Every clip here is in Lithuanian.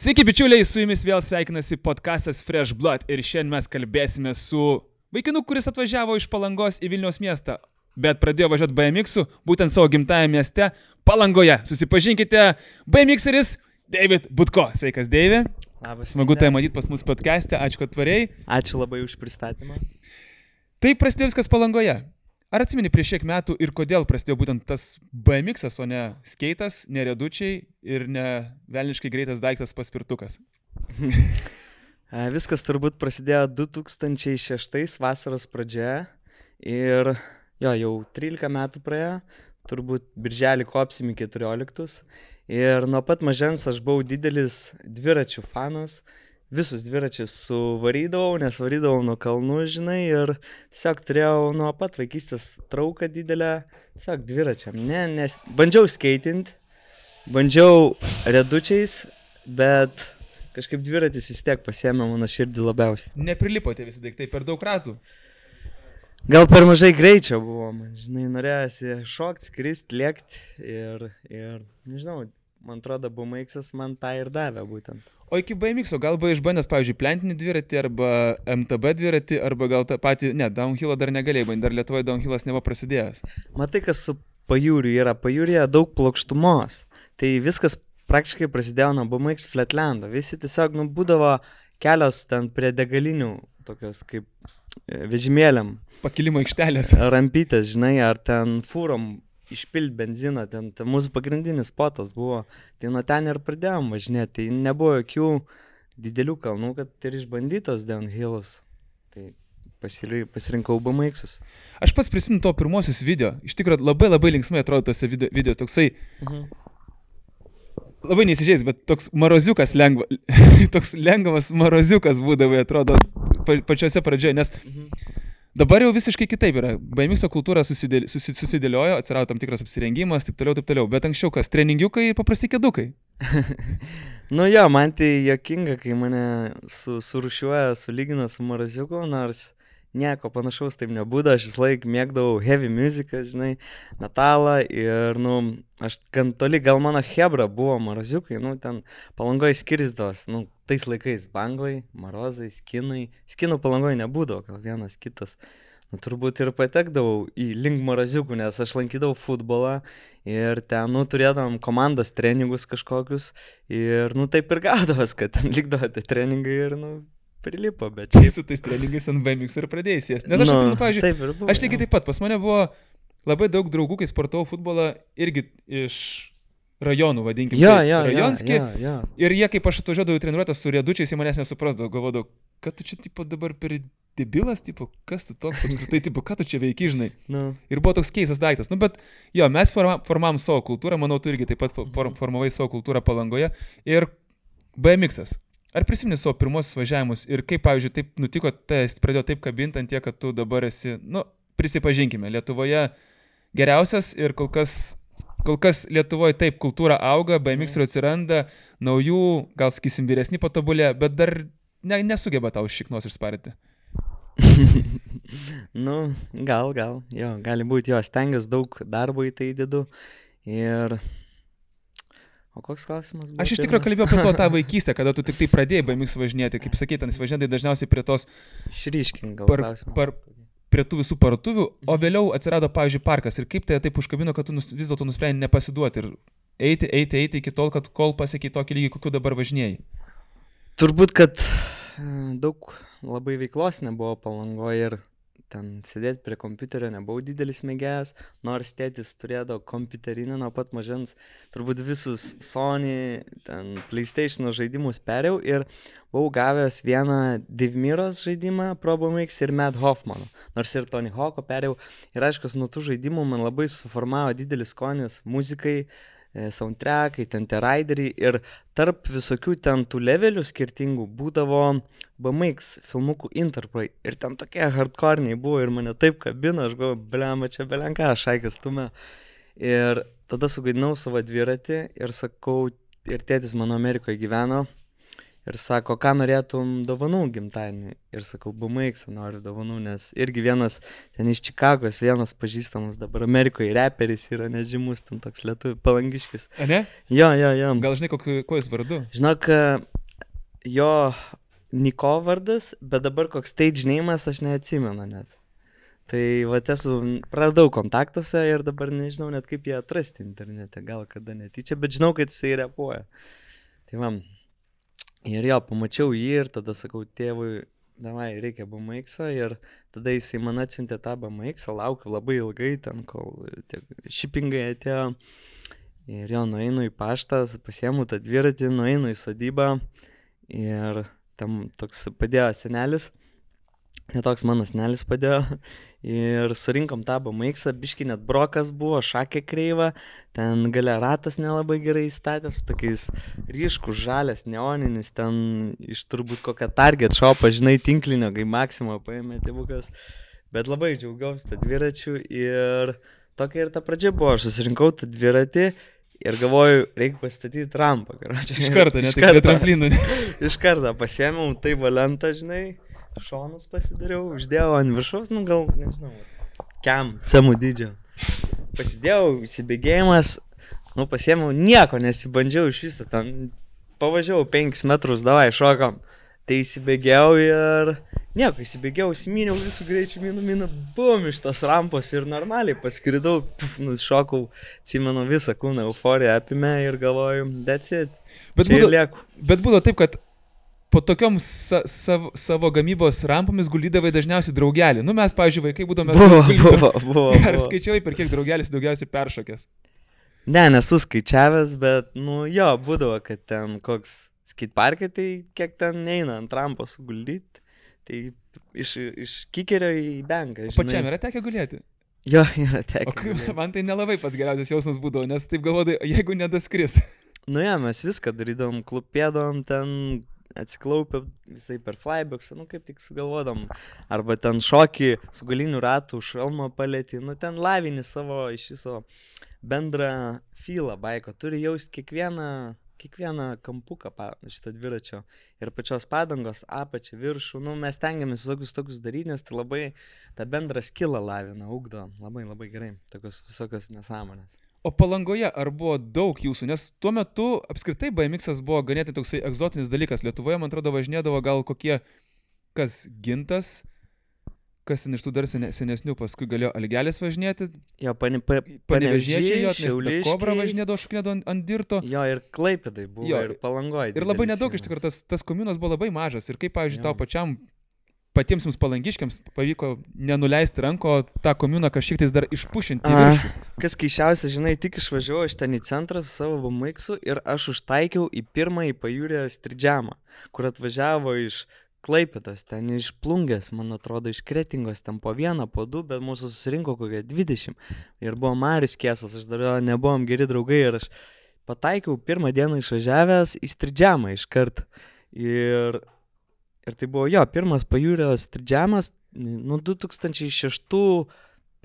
Sveiki bičiuliai, su jumis vėl sveikinasi podcastas Fresh Blood ir šiandien mes kalbėsime su vaikinu, kuris atvažiavo iš Palangos į Vilniaus miestą, bet pradėjo važiuoti BMX-u būtent savo gimtajame mieste Palangoje. Susipažinkite, BMX-eris David Butko. Sveikas, Deivi. Labas. Smagu tai matyti pas mus podcast'e, ačiū, kad tvariai. Ačiū labai už pristatymą. Tai prasidėjo viskas Palangoje. Ar atsimeni prieš kiek metų ir kodėl prasidėjo būtent tas BMX-as, o ne skeitas, ne riedučiai ir ne velniškai greitas daiktas paspirtukas? Viskas turbūt prasidėjo 2006 vasaros pradžioje ir jau 13 metų praėjo, turbūt birželį kopsim į 14. Ir nuo pat mažens aš buvau didelis dviračių fanas. Visus dviračius suvarydavau, nes varydavau nuo kalnų, žinai, ir tiesiog turėjau nuo pat vaikystės trauką didelę, tiesiog dviračiam. Nes bandžiau skeitinti, bandžiau riedučiais, bet kažkaip dviratis vis tiek pasiėmė mano širdį labiausiai. Neprilipote visi daiktai per daug ratų? Gal per mažai greičio buvo, man, žinai, norėjosi šokti, skristi, lėkti ir nežinau, man atrodo, BMX-as man tą ir davė būtent. O iki BMX-o gal buvo išbandęs, pavyzdžiui, plentinį dviratį arba MTB dviratį, arba gal tą patį, downhillą dar negalėjai bandyti, dar Lietuvoje downhillas nebuvo prasidėjęs. Matai, kas su pajūriu yra, pajūrėje daug plokštumos, tai viskas praktiškai prasidėjo nuo BMX Flatlando, visi tiesiog būdavo kelios ten prie degalinių, tokios kaip vežimėliam. Pakilimo aikštelės. Rampytės, žinai, ar ten fūrom išpilti benziną, ten mūsų pagrindinis spotas buvo, tai nuo ten ir pradėjom važinėti, tai nebuvo jokių didelių kalnų, kad ir išbandytos downhillus, tai pasirinkau BMX-us. Aš pats prisimenu to pirmosius video, iš tikrųjų labai linksmai atrodo tose video, toksai, labai neįsižeis, bet toks maroziukas toks lengvas maroziukas būdavo, atrodo, pačiose pradžioje, nes dabar jau visiškai kitaip yra. BMX kultūra susidėliojo, atsirado tam tikras apsirengimas, taip toliau, bet anksčiau kas, treningiukai ir paprasti kėdukai. Man tai juokinga, kai mane surūšiuoja, sulygina su maraziuku, nors nieko panašaus taip nebūda, aš vis laik mėgdavau heavy muziką, žinai, metalą ir, aš gan toli, gal mano hebra buvo maraziukai, ten Palangoje skirsdavos, tais laikais banglai, marozai, skinų Palangoje nebūdavo, gal vienas kitas. Turbūt ir patekdavau į link maraziukų, nes aš lankydavau futbolą ir ten, turėdavom komandos treningus kažkokius ir, taip ir gaudavos, kad ten likdavo tie treningai ir, prilipo, bet čia su tais treningais ant BMX ir pradėjai sėsti. Nes aš atsimenu, pavyzdžiui, aš lygiai taip pat, pas mane buvo labai daug draugų, kai sportavau futbolą irgi iš rajonų, vadinkim, rajonski. Ir jie, kaip aš atvažiuodavau į treniruotę su riedučiais, jie manęs nesuprasdavo, galvodavau, kad tu čia dabar per debilas, kas tu toks apskritai, ką tu čia veiki, žinai. Ir buvo toks keistas daiktas. Bet mes formavom savo kultūrą, manau, tu irgi taip pat formavai savo kultūrą Palangoje ir BMX-as. Ar prisimeni savo pirmosius važiavimus ir kaip, pavyzdžiui, taip nutiko, tai pradėjo taip kabinti ant tiek, kad tu dabar esi, prisipažinkime, Lietuvoje geriausias ir kol kas Lietuvoje taip kultūra auga, BMX-ų atsiranda, naujų, gal sakysim, vyresni patobulė, bet dar nesugeba tau šiknos išsparti. Gali būti, stengiuosi daug darbo į tai įdedu ir... O koks klausimas buvo? Aš iš tikrųjų kalbėjau apie tą vaikystę, kada tu tik tai pradėjai BMX važinėti, kaip sakei, ten važinėtai dažniausiai prie tos... Šryškin gal klausimą. Prie tų visų parduotuvių, o vėliau atsirado, pavyzdžiui, parkas. Ir kaip tai taip užkabino, kad tu vis dėlto nusprendei nepasiduoti ir eiti iki tol, kol pasiekiai tokį lygį, kokiu dabar važinėjai? Turbūt, kad daug labai veiklos nebuvo Palangoje ir ten sėdėti prie kompiuterio nebuvau didelis mėgėjas, nors tėtis turėdavo kompiuterinį nuo pat mažens, turbūt visus Sony, ten PlayStation žaidimus perėjau ir buvau gavęs vieną Devmiros žaidimą Pro BMX ir Matt Hoffmano, nors ir Tony Hawk'o perėjau ir aiškus, nuo tų žaidimų man labai suformavo didelis skonis muzikai, soundtrackai, ten tie raideriai ir tarp visokių ten tų levelių skirtingų būdavo BMX filmukų interpai ir ten tokie hardcorniai buvo ir mane taip kabino, aš galvoju, blema, čia belenka, šaikas tume. Ir tada sugaidinau savo dviratį ir sakau, ir tėtis mano Amerikoje gyveno ir sako, ką norėtum dovanų gimtadienį. Ir sakau, BMX noriu dovanų, nes irgi vienas ten iš Čikagos, vienas pažįstamas dabar Amerikoje reperis yra nežymus, ten toks lietuvių palangiškis. A ne? Jo. Gal žinai, kuo jis vardu? Žinok, Jo Niko vardas, bet dabar koks stage name'as aš neatsimenu net. Tai va esu radau kontaktuose ir dabar nežinau net kaip jį atrasti internete, gal kada netyčia, bet žinau, kad jisai repuoja. Tai va, ir jo, pamačiau jį ir tada sakau tėvui, davai, reikia BMX-o ir tada jisai man atsiuntė tą BMX-o, laukiu labai ilgai ten, kol shippingai atėjo. Ir jo, nueinu į paštą, pasiemu tą dviratį, nueinu į sodybą ir tam toks padėjo senelis, netoks mano senelis padėjo ir surinkom tą BMX-ą, biškį net brokas buvo, šakė kreiva, ten gale ratas nelabai gerai įstatęs, tokiais ryškus žalias, neoninis, ten iš turbūt kokią Target shopą, žinai, tinklinio, kai Maxima paėmė tėvukas, bet labai džiaugiausi tą dviračių ir tokia ir ta pradžia buvo, aš susirinkau tą dviratį ir galvoju, reikia pastatyti rampą. Iš karto, ne tik prie tramplinų. Iš karto pasiėmiau tai valentą, žinai, šonus pasidariau, uždėjau ant viršaus, nu gal, nežinau, cemų dydžio. Pasidėjau, įsibėgėjimas, nu pasiėmiau, nieko nesibandžiau iš viso, ten pavažiavau 5 metrus, davai, šokam. Tai įsibėgėjau ir nieko, įsibėgėjau, įsiminiau visų greičių, minu, bum, iš tos rampos ir normaliai paskridau, šokau, atsimenu visą kūną, euforija apimė ir galvoju, that's it, čia ir lieku. Bet būdavo taip, kad po tokiom savo gamybos rampomis guldydavai dažniausiai draugelį. Nu mes, pavyzdžiui, vaikai būdome... Buvo. Ar skaičiavai, per kiek draugelis daugiausiai peršokęs? Ne, nesu skaičiavęs, bet, nu jo, būdavo, kad ten koks skateparkai, tai kiek ten neina ant rampos suguldyti, tai iš kikerio į benką. O pačiam yra tekę gulėti? Jo, yra tekę. Man tai nelabai pats geriausias jausmas būdavo, nes taip galvodai, jeigu nedaskris. Nu ja, mes viską darydavom, klupėdavom ten, atsiklaupę visai per flyboxą, nu kaip tik sugalvodom. Arba ten šokį su galiniu ratu, šalmą palėti, nu ten lavini savo iš viso bendrą feelą baiko. Turi jausti kiekvieną kampuką šito dviračio ir pačios padangos, apačią, viršų. Nu, mes tengiamės tokius daryti, nes tai labai tą bendrą skillą lavina, ugdo. Labai, labai gerai. Tokios visokios nesąmonės. O Palangoje ar buvo daug jūsų? Nes tuo metu apskritai BMX-as buvo ganėtinai toksai egzotinis dalykas. Lietuvoje, man atrodo, važinėdavo gal kokie, kas Gintas, kas iš tų dar senesnių, paskui galėjo Algelis važinėti. Jo, Panevežiečiai, Šiauliškiai. Kobra važinėdavo, šoknėdavo ant dirto. Jo, ir Klaipėdai buvo, jo, ir Palangoje. Ir labai nedaug iš tikrųjų, tas komunas buvo labai mažas. Ir kaip, pavyzdžiui, tau pačiam, patiems jums palangiškiams pavyko nenuleisti ranko tą komuną kažkiek tais dar išpušinti į viršų. Kas keišiausia, žinai, tik išvažiavau aš ten į centrą su savo BMX-u ir aš užtaikiau į pirmąjį pajūrę stridžiamą, kur atvažiavo iš Klaipėdos, ten iš Plungės, man atrodo, iš Kretingos, ten po 1, po 2, bet mūsų susirinko kokie 20. Ir buvo Marius Kiesas, aš dar nebuvom geri draugai ir aš pataikiau pirmą dieną išvažiavęs į stridžiamą iškart. Ir tai buvo jo, pirmas pajūrio stridžiamas, nu 2006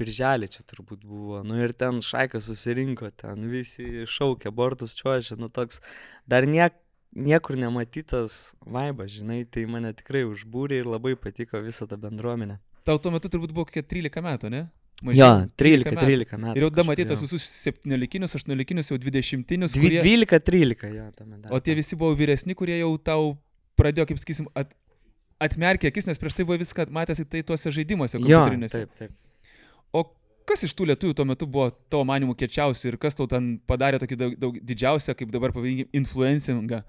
birželį čia turbūt buvo, nu ir ten šaika susirinko, ten visi šaukė, bortus čiuožė, nu toks dar niekur nematytas vaibas, žinai, tai mane tikrai užbūrė ir labai patiko visą tą bendruomenę. Tau tuo metu turbūt buvo kokie 13 metų, ne? Jo, 13 metų. Ir jau da matytas visus 17-inius, 18-inius, jau 20-inius. 12-13, jo, tame dar. O tie visi buvo vyresni, kurie jau tau pradėjo, kaip sakysim, atmerkė akis, nes prieš tai buvo viską matęs tai tuose žaidimuose kompiuterinėse. Jo, taip. O kas iš tų lietuvių tuo metu buvo tavo manimų kiečiausių ir kas tau ten padarė tokį daug didžiausią, kaip dabar pavadinkim, influencingą?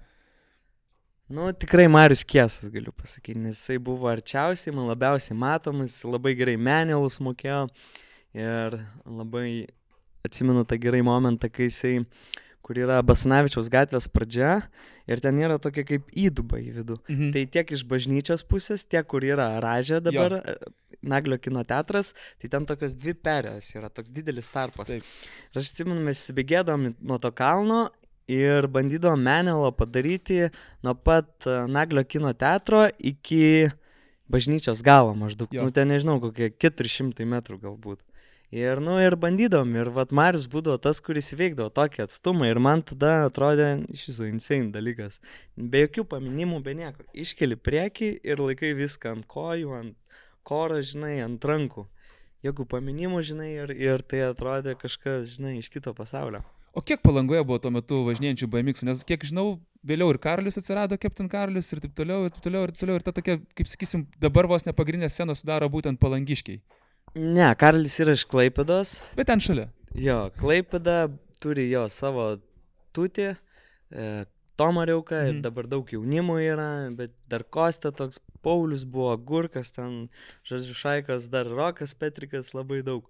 Nu, tikrai Marius Kiesas, galiu pasakyti, nes jisai buvo arčiausiai, man labiausiai matomas, labai gerai menelus mokėjo ir labai atsimenu tą gerai momentą, kai jisai, kur yra Basanavičiaus gatvės pradžia ir ten yra tokia kaip įduba į vidų. Tai tiek iš bažnyčios pusės, tiek kur yra Ražė dabar, Naglio kino teatras, tai ten tokios 2 perės yra, toks didelis tarpas. Ir aš atsimenu, mes įsibėgėdavom nuo to kalno ir bandydavom menelą padaryti nuo pat Naglio kino teatro iki bažnyčios galo maždaug. Nu, ten nežinau, kokie 400 metrų galbūt. Ir bandydavom, ir vat Marius būdavo tas, kuris įveikdavo tokį atstumą ir man tada atrodė iš viso insane dalykas. Be jokių paminimų, be nieko. Iškeli priekį ir laikai viską ant kojų, ant koro, žinai, ant rankų. Jokių paminimų, žinai, ir tai atrodė kažkas, žinai, iš kito pasaulio. O kiek Palangoje buvo tuo metu važinėjančių BMX-ų? Nes kiek žinau, vėliau ir Karolis atsirado, Captain Karolis ir taip toliau, ir ta tokia, kaip sakysim, dabar vos nepagrindinė scena sudaro būtent palangiškiai. Ne, Karolis yra iš Klaipėdos. Bet ten šalia. Jo, Klaipėda turi jo savo tutį, Tomariauką ir dabar daug jaunimų yra, bet dar Kostė toks, Paulius buvo, Gurkas ten, žodžiu, Šaikas, dar Rokas Petrikas, labai daug.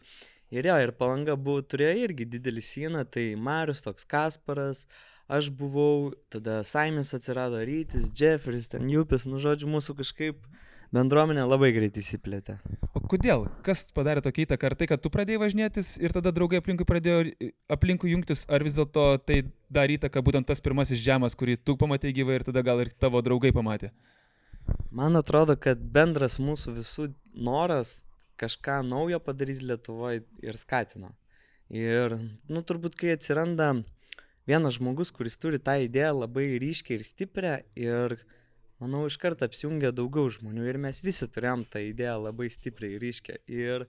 Ir jo, ir Palanga turėjo irgi didelį sieną, tai Marius, toks Kasparas, aš buvau, tada Saimis atsirado, Rytis, Jeffris, ten Jupis, nu žodžiu, mūsų kažkaip bendruomenė labai greit įsiplėtė. O kodėl? Kas padarė tokią įtaką? Ar tai, kad tu pradėjai važinėtis ir tada draugai pradėjo aplinkui jungtis, ar vis dėlto tai darė įtaką būtent tas pirmasis džemas, kurį tu pamatei gyvai ir tada gal ir tavo draugai pamatė? Man atrodo, kad bendras mūsų visų noras kažką naujo padaryti Lietuvoje ir skatino. Ir, nu, turbūt, kai atsiranda vienas žmogus, kuris turi tą idėją labai ryškiai ir stiprią ir, manau, iš karto apsijungia daugiau žmonių ir mes visi turėjom tą idėją labai stipriai ir ryškią. Ir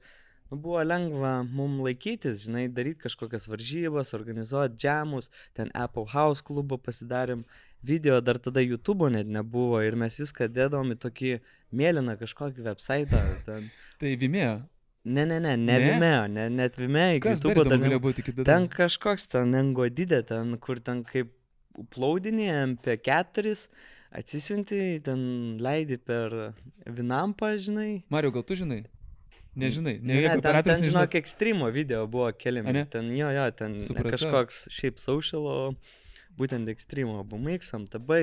buvo lengva mums laikytis, žinai, daryti kažkokias varžybas, organizuoti džemus, ten Apple House klubą pasidarėm, video dar tada YouTube'o net nebuvo ir mes viską dėdavom į tokį mėlyną kažkokį website'ą. Ten. Tai Vimeo? Ne Vimeo, net Vimeo, iki YouTube'o dar nebuvo. Ten kažkoks ten Engodidė, ten kur ten kaip uploadinė MP4, atsisiunti, ten leidi per Vinampą, žinai. Mario, gal tu žinai? Nežinai. Ne, ten žinok, Extremo video buvo keliami. Ten ten kažkoks šiaip social, būtent Extremo, BMX, MTB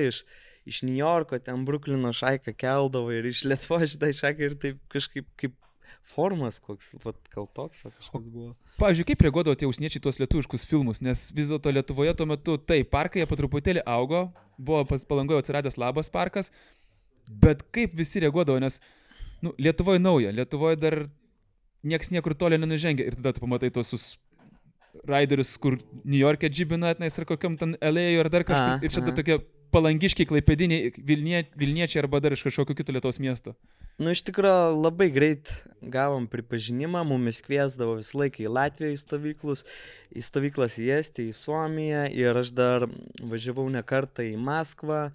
iš New Yorko, ten Bruklino Šaiką keldavo ir iš Lietuvos šitą Šaiką ir taip kažkaip kaip formas koks, gal toks kažkoks buvo. Pavyzdžiui, kaip reaguodavo tie užsieniečiai tuos lietuviškus filmus, nes vis dėlto Lietuvoje tuo metu, parkai jie po truputėlį augo, buvo Palangoje atsiradęs Labas parkas, bet kaip visi reaguodavo, nes Lietuvoje nauja, Lietuvoje dar nieks niekur toli nenužengia ir tada tu pamatai tuos raiderius, kur New York'e džibina, ar kokiam ten LA ar dar kažkas, ir čia tokie palangiškiai, klaipėdiniai, Vilniečiai arba dar iš kažkokio kito Lietuvos miesto. Nu, iš tikrųjų, labai greit gavom pripažinimą, mumis kviesdavo visą laiką į Latviją į stovyklas į Estiją, į Suomiją ir aš dar važiavau ne kartą į Maskvą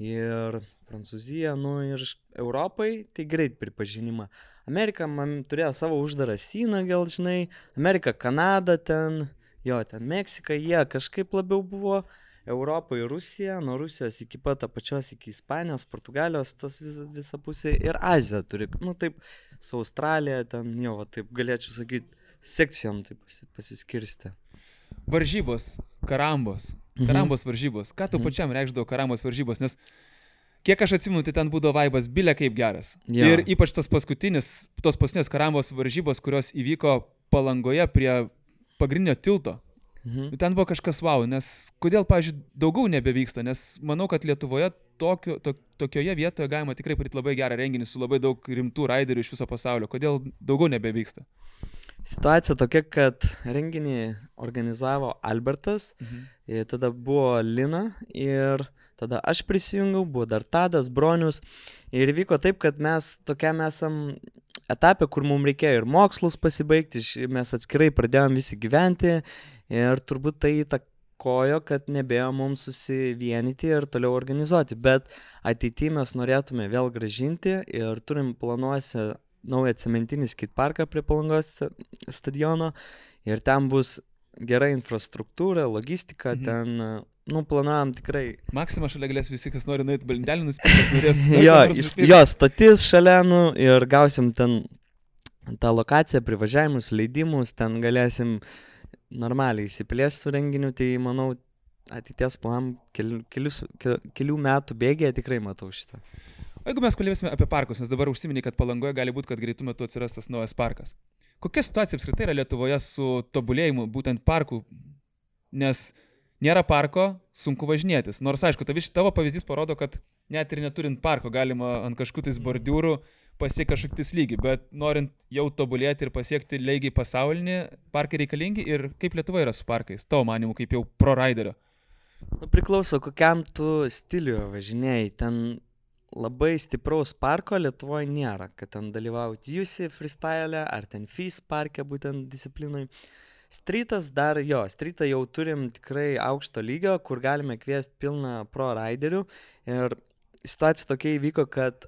ir Prancūziją, ir Europai, tai greit pripažinimą. Amerika man turėjo savo uždarą sieną, gal žinai, Amerika, Kanada ten, ten Meksika, jie kažkaip labiau buvo, Europa ir Rusija, nuo Rusijos iki pat apačios iki Ispanijos, Portugalijos, tas visa pusė ir Azija turi, taip, su Australija ten, taip galėčiau sakyti, sekcijom taip pasiskirsti. Varžybos, karambos varžybos, ką tu pačiam reikšdavo karambos varžybos, nes kiek aš atsimenu, tai ten būdavo vaibas bilė kaip geras. Jo. Ir ypač tos paskutinės karambos varžybos, kurios įvyko Palangoje prie pagrindinio tilto. Ten buvo kažkas wow, nes kodėl, pavyzdžiui, daugiau nebevyksta, nes manau, kad Lietuvoje tokioje vietoje galima tikrai padaryti labai gerą renginį su labai daug rimtų raiderių iš viso pasaulio. Kodėl daugiau nebevyksta? Situacija tokia, kad renginį organizavo Albertas, tada buvo Lina ir tada aš prisijungiau, buvo dar Tadas, Bronius ir vyko taip, kad mes tokiam esam etapė, kur mums reikėjo ir mokslus pasibaigti, mes atskirai pradėjom visi gyventi ir turbūt tai įtakojo, kad nebėjo mums susivienyti ir toliau organizuoti, bet ateityje mes norėtume vėl grąžinti ir turim planuose naują cementinį skateparką prie Palangos stadiono ir ten bus gera infrastruktūra, logistika, ten planuojam tikrai. Maksima šalia galės visi, kas nori nueiti balindelį nusipirkti. Jo, stotis šalia, ir gausim ten tą lokaciją, privažiavimus, leidimus, ten galėsim normaliai įsiplėsti su renginiu, tai manau, ateities planam kelių metų bėgėje tikrai matau šitą. O jeigu mes kalbėsime apie parkus, nes dabar užsiminė, kad Palangoje gali būti, kad greitų metu atsiras tas naujas parkas. Kokia situacija apskritai yra Lietuvoje su tobulėjimu būtent parkų? Nes nėra parko, sunku važinėtis. Nors, aišku, tavo pavyzdys parodo, kad net ir neturint parko galima ant kažkokiais bordiūrų pasiekti kažkokius lygį, bet norint jau tobulėti ir pasiekti lygiai pasaulinį, parkai reikalingi ir kaip Lietuva yra su parkais, tavo manimu, kaip jau pro raiderio? Priklauso, kokiam tu stiliuje važinėjai. Ten labai stipraus parko Lietuvoje nėra, kad ten dalyvauti UC freestyle ar ten FIS parke būtent disciplinui. Streetas streetą jau turim tikrai aukšto lygio, kur galime kviesti pilną pro raiderių. Ir situacija tokia įvyko, kad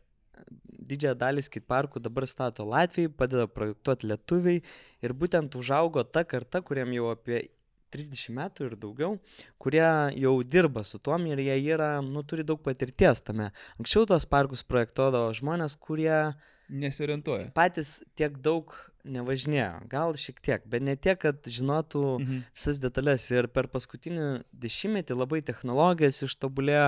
didžiąją dalį skateparkų dabar stato Latvijai, padeda projektuoti lietuviai. Ir būtent užaugo ta karta, kuriem jau apie 30 metų ir daugiau, kurie jau dirba su tuom ir jie turi daug patirties tame. Anksčiau tos parkus projektuodavo žmonės, kurie nesiorientuoja. Patys tiek daug nevažinėjo, gal šiek tiek, bet ne tiek, kad žinotų visas detalės. Ir per paskutinį 10 labai technologijas ištobulėjo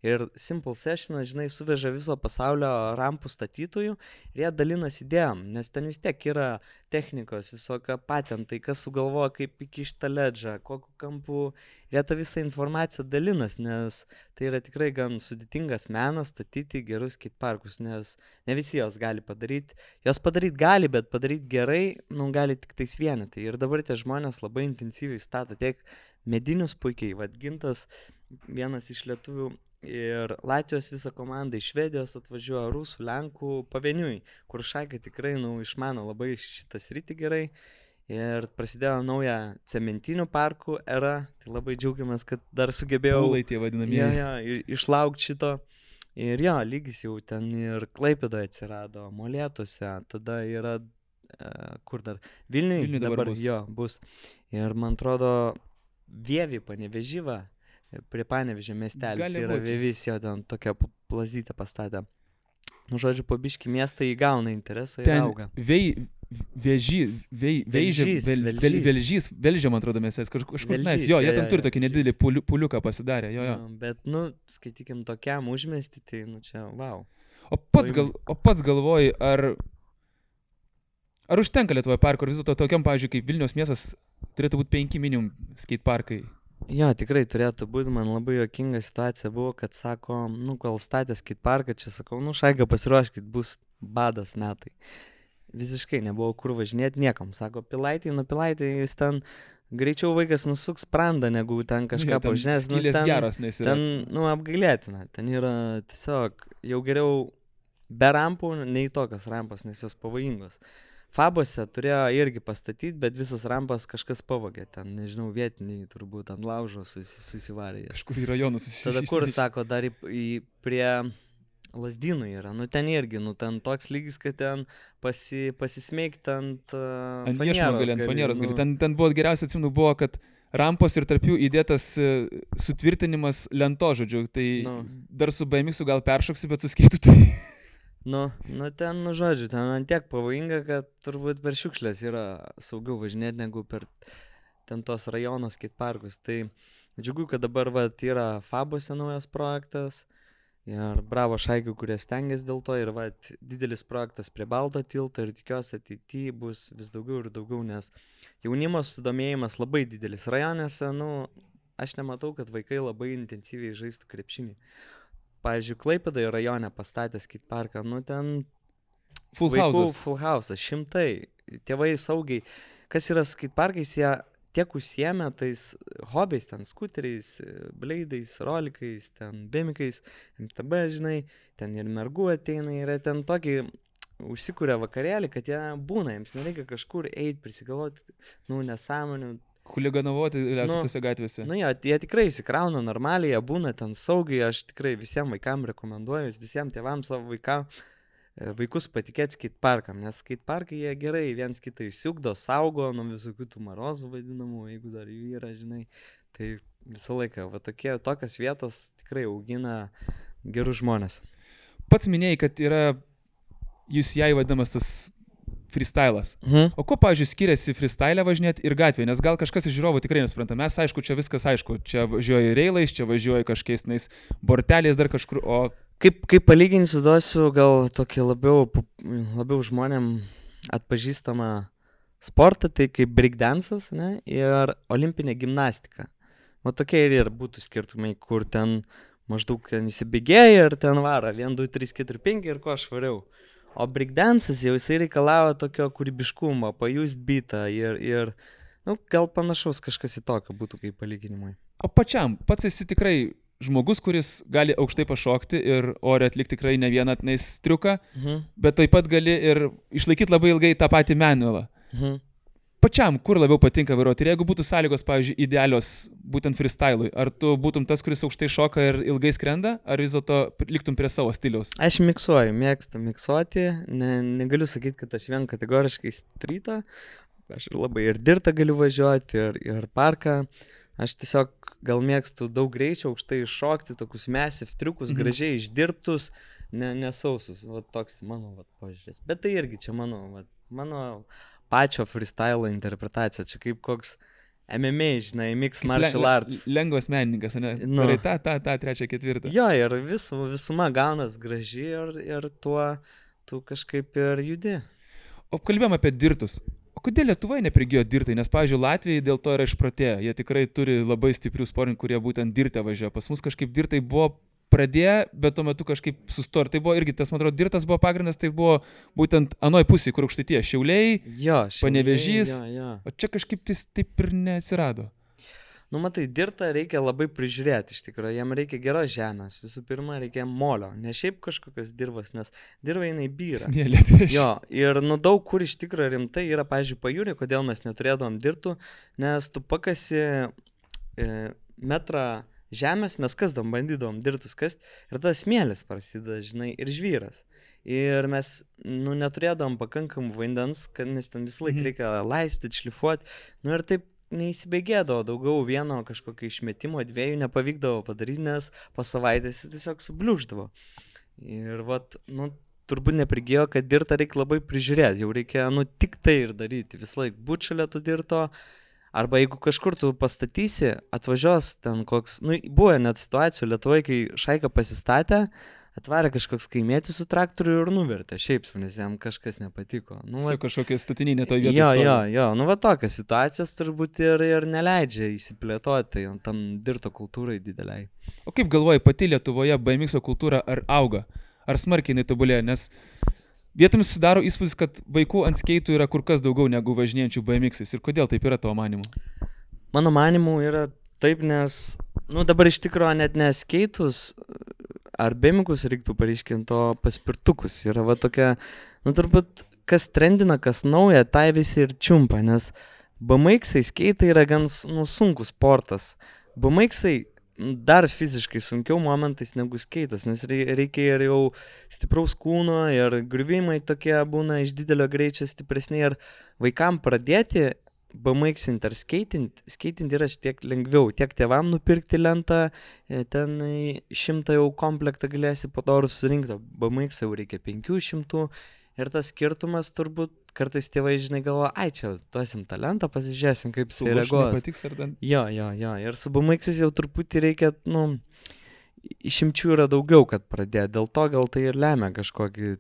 ir Simple Sessionas, suveža viso pasaulio rampų statytojų ir jie dalinasi idėjom, nes ten vis tiek yra technikos, visokio patentai, kas sugalvoja, kaip įkišti tą ledžą, kokiu kampu. Ir jie tą visą informaciją dalinas, nes tai yra tikrai gan sudėtingas menas statyti gerus skateparkus, nes ne visi jos gali padaryti. Jos padaryti gali, bet padaryti gerai, gali tik tais vienetai. Ir dabar tie žmonės labai intensyviai stato tiek medinius puikiai, Gintas, vienas iš lietuvių, ir Latvijos visą komandą iš Švedijos atvažiuoja, rusų, lenkų, pavieniui, kur Šaikai tikrai išmano labai šitą sritį gerai. Ir prasidėjo nauja cementinių parkų era, tai labai džiaugiamės, kad dar sugebėjau išlaukti šito. Ir lygis jau ten ir Klaipėdoje atsirado, Molėtuose, tada yra, kur dar, Vilniuje dabar bus. Ir man atrodo, Vievi Panevėžyva, prie Panevėžio miestelis yra Vievis, ten tokią plazytę pastatę. Žodžiu, po biškį miestą įgauna interesą ir auga. Velžė, man atrodo, mes kažkur mes, jie ten turi tokį nedidelį puliuką pasidarę, Bet, skaitykim, tokiam užmesti, tai, čia, wow. O pats galvoji, ar užtenka Lietuvoje parko, ar vis dėlto tokiam, pavyzdžiui, kaip Vilniaus miestas, turėtų būti 5 minimum skateparkai? Tikrai turėtų būti, man labai juokinga situacija buvo, kad sako, kol statė skateparką, čia sakau, Šaiga pasiruoškit, bus badas metai. Visiškai nebuvo kur važinėti niekam. Sako, Pilaitėj, jis ten greičiau vaikas nusuks sprandą, negu ten kažką pažinės. Ten apgailėtina. Ten yra tiesiog jau geriau be rampų, nei tokios rampos, nes jos pavojingos. Fabose turėjo irgi pastatyti, bet visas rampas kažkas pavogė. Ten, nežinau, vietiniai turbūt ant laužo susivarė. Kažkur į rajonus susivarė. Tada kur, sako, dar prie Lazdynų yra, ten irgi, ten toks lygis, kad ten pasismeigti ant fanieros gali. Ten buvo geriausia, atsimenu, buvo, kad rampos ir tarp jų įdėtas sutvirtinimas lento, žodžiu, tai dar su BMX gal peršoksi, bet su skeitu tai... Ten, žodžiu, ten antiek pavojinga, kad turbūt per šiukšlės yra saugiau važinėti, negu per ten tos rajono skateparkus. Tai džiugu, kad dabar yra Fabose naujas projektas. Ir bravo Šaikių, kurie stengiasi dėl to. Ir didelis projektas prie Balto tilto ir tikiuosi ateityje bus vis daugiau ir daugiau, nes jaunimo susidomėjimas labai didelis. Rajonėse, aš nematau, kad vaikai labai intensyviai žaistų krepšinį. Pavyzdžiui, Klaipėdoje rajone pastatė skateparką, ten full house, 100. Tėvai saugiai. Kas yra skateparkais, jie tiek užsiėmė tais hobiais, ten skuteriais, bleidais, rolikais, ten bėmikais, MTB, ten ir mergų ateina, yra ten tokį užsikūrė vakarėlį, kad jie būna, jiems nereikia kažkur eiti, prisigalvoti, nesąmonių. Huliganovoti tose gatvėse. Jie tikrai įsikrauna normaliai, jie būna ten saugiai, aš tikrai visiems vaikams rekomenduoju, visiems tėvams savo vaikus patikėti skateparkam, nes skateparkai jie gerai viens kitą išsiugdo, saugo nuo visokių tų marozų vadinamų, jeigu dar jų yra, tai visą laiką, tokios vietos tikrai augina gerus žmonės. Pats minėjai, kad yra UCI vadinamas tas freestylas. O ko, pavyzdžiui, skiriasi freestyle važinėti ir gatvėje, nes gal kažkas iš žiūrovų tikrai nesupranta. Mes, aišku, čia viskas aišku, čia važiuoja reilais, čia važiuoja kažkokiais borteliais dar kažkur, o... Kaip palyginsiu, duosiu gal tokį labiau žmonėm atpažįstamą sportą, tai kaip breakdance'as, ir olimpinė gimnastika. Tokie ir būtų skirtumai, kur ten maždaug įsibėgėja ir ten varo 1, 2, 3, 4, 5 ir ko švariau. O breakdance'as jau jisai reikalavo tokio kūrybiškumo, pajust beatą ir gal panašaus kažkas į tokio būtų kaip palyginimui. O pats esi tikrai žmogus, kuris gali aukštai pašokti ir ore atlikti tikrai ne vieną triuką, bet taip pat gali ir išlaikyti labai ilgai tą patį manualą. pačiam, kur labiau patinka vairuoti? Ir jeigu būtų sąlygos, pavyzdžiui, idealios būtent freestyle'ui, ar tu būtum tas, kuris aukštai šoka ir ilgai skrenda, ar vis dėlto liktum prie savo stiliaus? Aš miksuoju, mėgstu miksuoti, negaliu sakyti, kad aš vien kategoriškai streetą, aš labai ir dirtą galiu važiuoti, ir parką. Aš tiesiog gal mėgstu daug greičio, aukštai šokti, tokius massive triukus, gražiai išdirbtus, nesausus. Va toks mano požiūris. Bet tai irgi čia mano pačio freestyle interpretacija. Čia kaip koks MMA, žinai, mixed martial arts. Lengvas menininkas, ne? Nu. Tai tą, trečią, ketvirtą. Jo, ir visuma gaunas graži ir tuo tu kažkaip ir judi. O kalbėjom apie dirtus. O kodėl Lietuvoje neprigijo dirtai? Nes, pavyzdžiui, Latvijai dėl to yra išprotėję. Jie tikrai turi labai stiprių sportininkų, kurie būtent dirtę važiuoja. Pas mus kažkaip dirtai buvo pradėję, bet tuo metu kažkaip sustor. Tai buvo irgi, tas, man atrodo, dirtas buvo pagrindas, tai buvo būtent anoj pusėje, kur Aukštaitija. Šiauliai, Panevėžys. O čia kažkaip taip ir neatsirado. Nu, matai, dirtą reikia labai prižiūrėti, iš tikrųjų, jam reikia geros žemės, visų pirma, reikia molio, ne šiaip kažkokios dirvos, nes dirva jinai byra. Smėlė. Jo, ir daug kur iš tikrųjų rimtai yra, pavyzdžiui, pajūrė, kodėl mes neturėdavom dirtų, nes tu pakasi metrą žemės, mes kasdom, bandydavom dirtus kast, ir tas smėlis prasideda, žinai, ir žvyras. Ir mes, neturėdavom pakankamų vandens, nes ten visą laiką reikia laistyti, šlifuoti, ir taip neįsibėgėdavo, daugiau vieno kažkokio išmetimo, dviejų nepavykdavo padaryti, nes po savaitės tiesiog subliūždavo. Ir turbūt neprigijo, kad dirtą reikia labai prižiūrėti, jau reikia, tik tai ir daryti, visą laiką būt šalia to dirto, arba jeigu kažkur tu pastatysi, atvažiuos ten koks, buvo net situacijų Lietuvoje, kai šaika pasistatė, atvarė kažkoks kaimietis su traktoriu ir nuvertė, šiaip, nes jam kažkas nepatiko. Kažkokia statinė toj vietoj. Jo, tokios situacijas turbūt ir neleidžia įsiplėtoti tam dirto kultūrai dideliai. O kaip galvoji, pati Lietuvoje BMX kultūra ar auga? Ar smarkiai jinai tobulėja? Nes vietomis sudaro įspūdis, kad vaikų ant skeitų yra kur kas daugiau negu važinėjančių BMX-ais. Ir kodėl taip yra tavo manimu? Mano manimu yra taip, nes, dabar iš tikrųjų net ne skeitus, ar bėmikus reiktų pareiškinti, o paspirtukus. Yra tokia, turbūt, kas trendina, kas nauja, tai visi ir čiumpa, nes BMX-ai skeitai yra gan sunkus sportas. BMX-ai dar fiziškai sunkiau momentais negu skeitas, nes reikia ir jau stipraus kūno, ir griuvimai tokie būna iš didelio greičio stipresni, ir vaikam pradėti BMX-int ar skeitinti yra tiek lengviau, tiek tėvam nupirkti lentą, ten 100 jau komplektą galėsi padorų surinkti, BMX jau reikia 500, ir tas skirtumas turbūt kartais tėvai, žinai, galvoja, čia duosim tą lentą, pasižiūrėsim, kaip jis reaguos. Jo, ir su BMX-ais jau truputį reikia, išimčių yra daugiau, kad pradėti, dėl to gal tai ir lemia kažkokį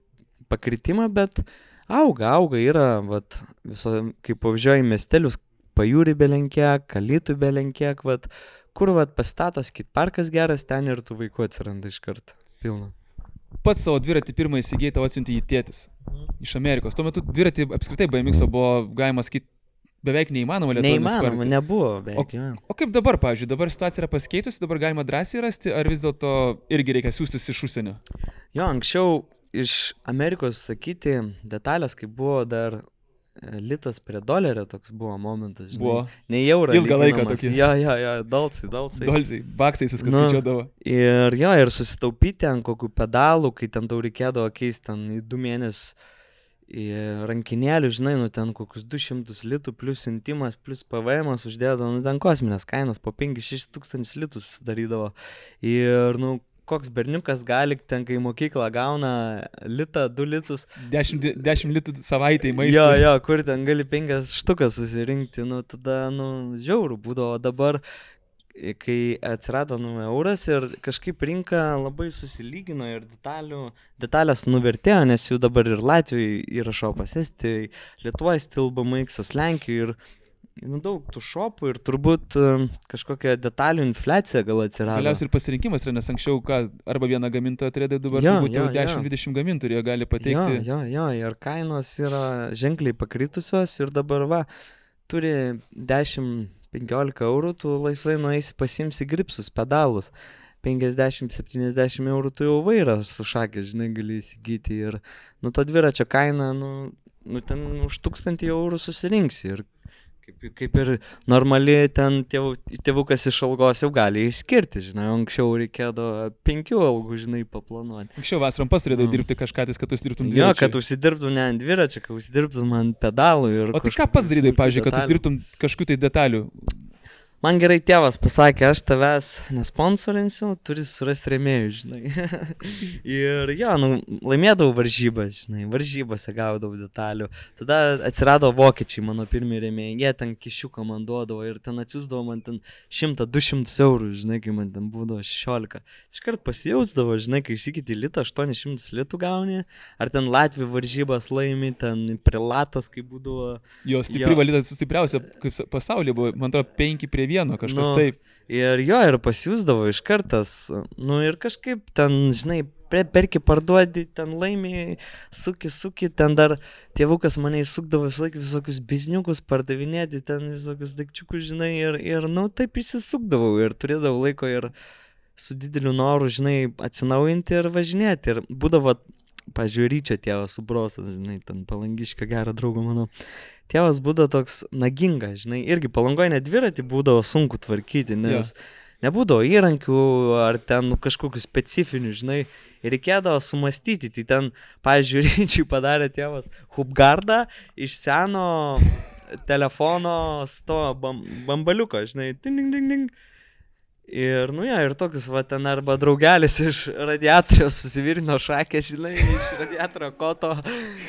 pakritimą, bet auga, yra, kaip pavyzdžiui, miestelius, pajūrį belenkiek, Alytų belenkiek, kur, pastatas skateparkas geras, ten ir tų vaikų atsiranda iš karto, pilna. Pats savo dviratį pirmą įsigijai, tavo atsiuntė jį tėtis iš Amerikos. Tuo metu dviratį apskritai BMX-o buvo, galima sakyti, beveik neįmanoma Lietuvoje nusipirkti. Neįmanoma, nebuvo beveik. O kaip dabar, pavyzdžiui, dabar situacija yra pasikeitusi, dabar galima drąsiai rasti, ar vis dėlto irgi reikia siųstis iš užsienio? Jo, anksčiau iš Amerikos sakyti detalės, kai buvo dar litas prie dolerio, toks buvo momentas, žinai. Buvo. Ne eurą. Ilgą laiką tokį. Jo, dolcai. Dolcai, baksais viskas skaičiuodavo. Ir susitaupyti ant kokių pedalų, kai ten tau reikėdavo keisti ten į 2 mėnesius į rankinėlių, žinai, ten kokius 200 litų plus intimas, plus PVM uždėdavo, ten kosminės kainos po 5-6 tūkstančius litų sudarydavo. Ir, koks berniukas gali, ten kai mokyklą gauna litą, 2 litus. 10 litų savaitėj maistui. Jo, kur ten gali 5 štukas susirinkti, tada, žiaurų būdavo. Dabar, kai atsirado euras ir kažkaip rinka labai susilygino ir detalės nuvertėjo, nes jų dabar ir Latvijoje yra šopas, Estijoje, Lietuvoje stil BMX-as, Lenkijoje ir daug tų šopų ir turbūt kažkokia detalių infliacija gal atsirado. Galiausiai ir pasirinkimas yra, nes anksčiau arba vieną gamintoją turėdavo, dabar turbūt jau 10-20 gamintojų gali pateikti. Jo, ir kainos yra ženkliai pakritusios ir dabar turi 10-15 eurų, tu laisvai nueisi pasimsi gripsus, pedalus. 50-70 eurų tu jau vairą su šakė, žinai, gali įsigyti ir to dviračio kaina, ten už 1000 eurų susirinksi ir kaip ir normali ten tėvukas iš algos jau gali išskirti, žinai, anksčiau reikėdavo 5 algų, žinai, paplanuoti. Anksčiau vasarom pasirėdai dirbti kažką, kad užsidirbtum dviračių. Jo, kad užsidirbtum ne ant dviračio, kad užsidirbtum ant pedalų ir... O tai ką pats darydai, pavyzdžiui, kad užsidirbtum kažkokių tai detalių? Man gerai tėvas pasakė, aš tavęs nesponsorinsiu, turi surasti rėmėjų, žinai. Ir jo, laimėdavau varžybas, žinai, varžybose gaudavau detalių. Tada atsirado vokiečiai, mano pirmie rėmėjai, jie ten kišiuką man duodavo ir ten atsiųsdavo man ten 100-200 eurų, žinai, kai man ten būdavo 16. Iškart pasijausdavo, žinai, kai išsikiti litą, 800 litų gauni, ar ten Latvijų varžybas laimi, ten prilatas, kai būdavo... Jo, stipri valytas, stipriausia, kaip pasaulyje buvo, man atrodo, 5-1 kažkas taip. Ir jo, ir pasiūsdavo iš kartas, ir kažkaip ten, žinai, perki parduodi, ten laimi, suki, ten dar tėvukas mane įsukdavo visokius bizniukus pardavinėti, ten visokius daikčiukus, žinai, ir taip įsisukdavau ir turėdavau laiko ir su dideliu noru, žinai, atsinaujinti ir važinėti. Ir būdavo, pažiūrėjau, Ryčio tėvas su brosas, žinai, ten Palangiškio gerą draugą mano. Tėvas būdavo toks nagingas, žinai, irgi Palangoje net dviratį būdavo sunku tvarkyti, nes nebūdavo įrankių ar ten kažkokių specifinių, žinai, ir reikėdavo sumastyti. Tai ten, pavyzdžiui, Ryčiui padarė tėvas hubgardą iš seno telefono bambaliuko, žinai, ding, ding, ding. Ir, ir tokius, va, ten arba draugelis iš radiatorio susivirino šakę, žinai, iš radiatorio koto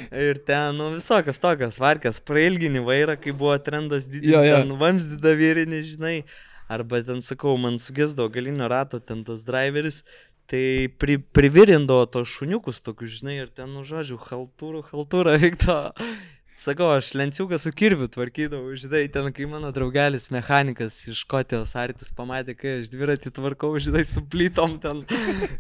ir ten, visokios tokios varkės, prailginį vairą, kai buvo trendas didelis, ten vamsdyda vyrinį, žinai, arba ten, sakau, man sugesdavo galinio rato ten tas driveris, tai privirindavo tos šuniukus tokius, žinai, ir ten, žodžiu, haltūrą vykdo. Sakau, aš lenciuką su kirviu tvarkydavau, žinai, ten, kai mano draugelis mechanikas iš Škotijos Artis pamatė, kai aš dviratį tvarkau, žinai, su plytom ten,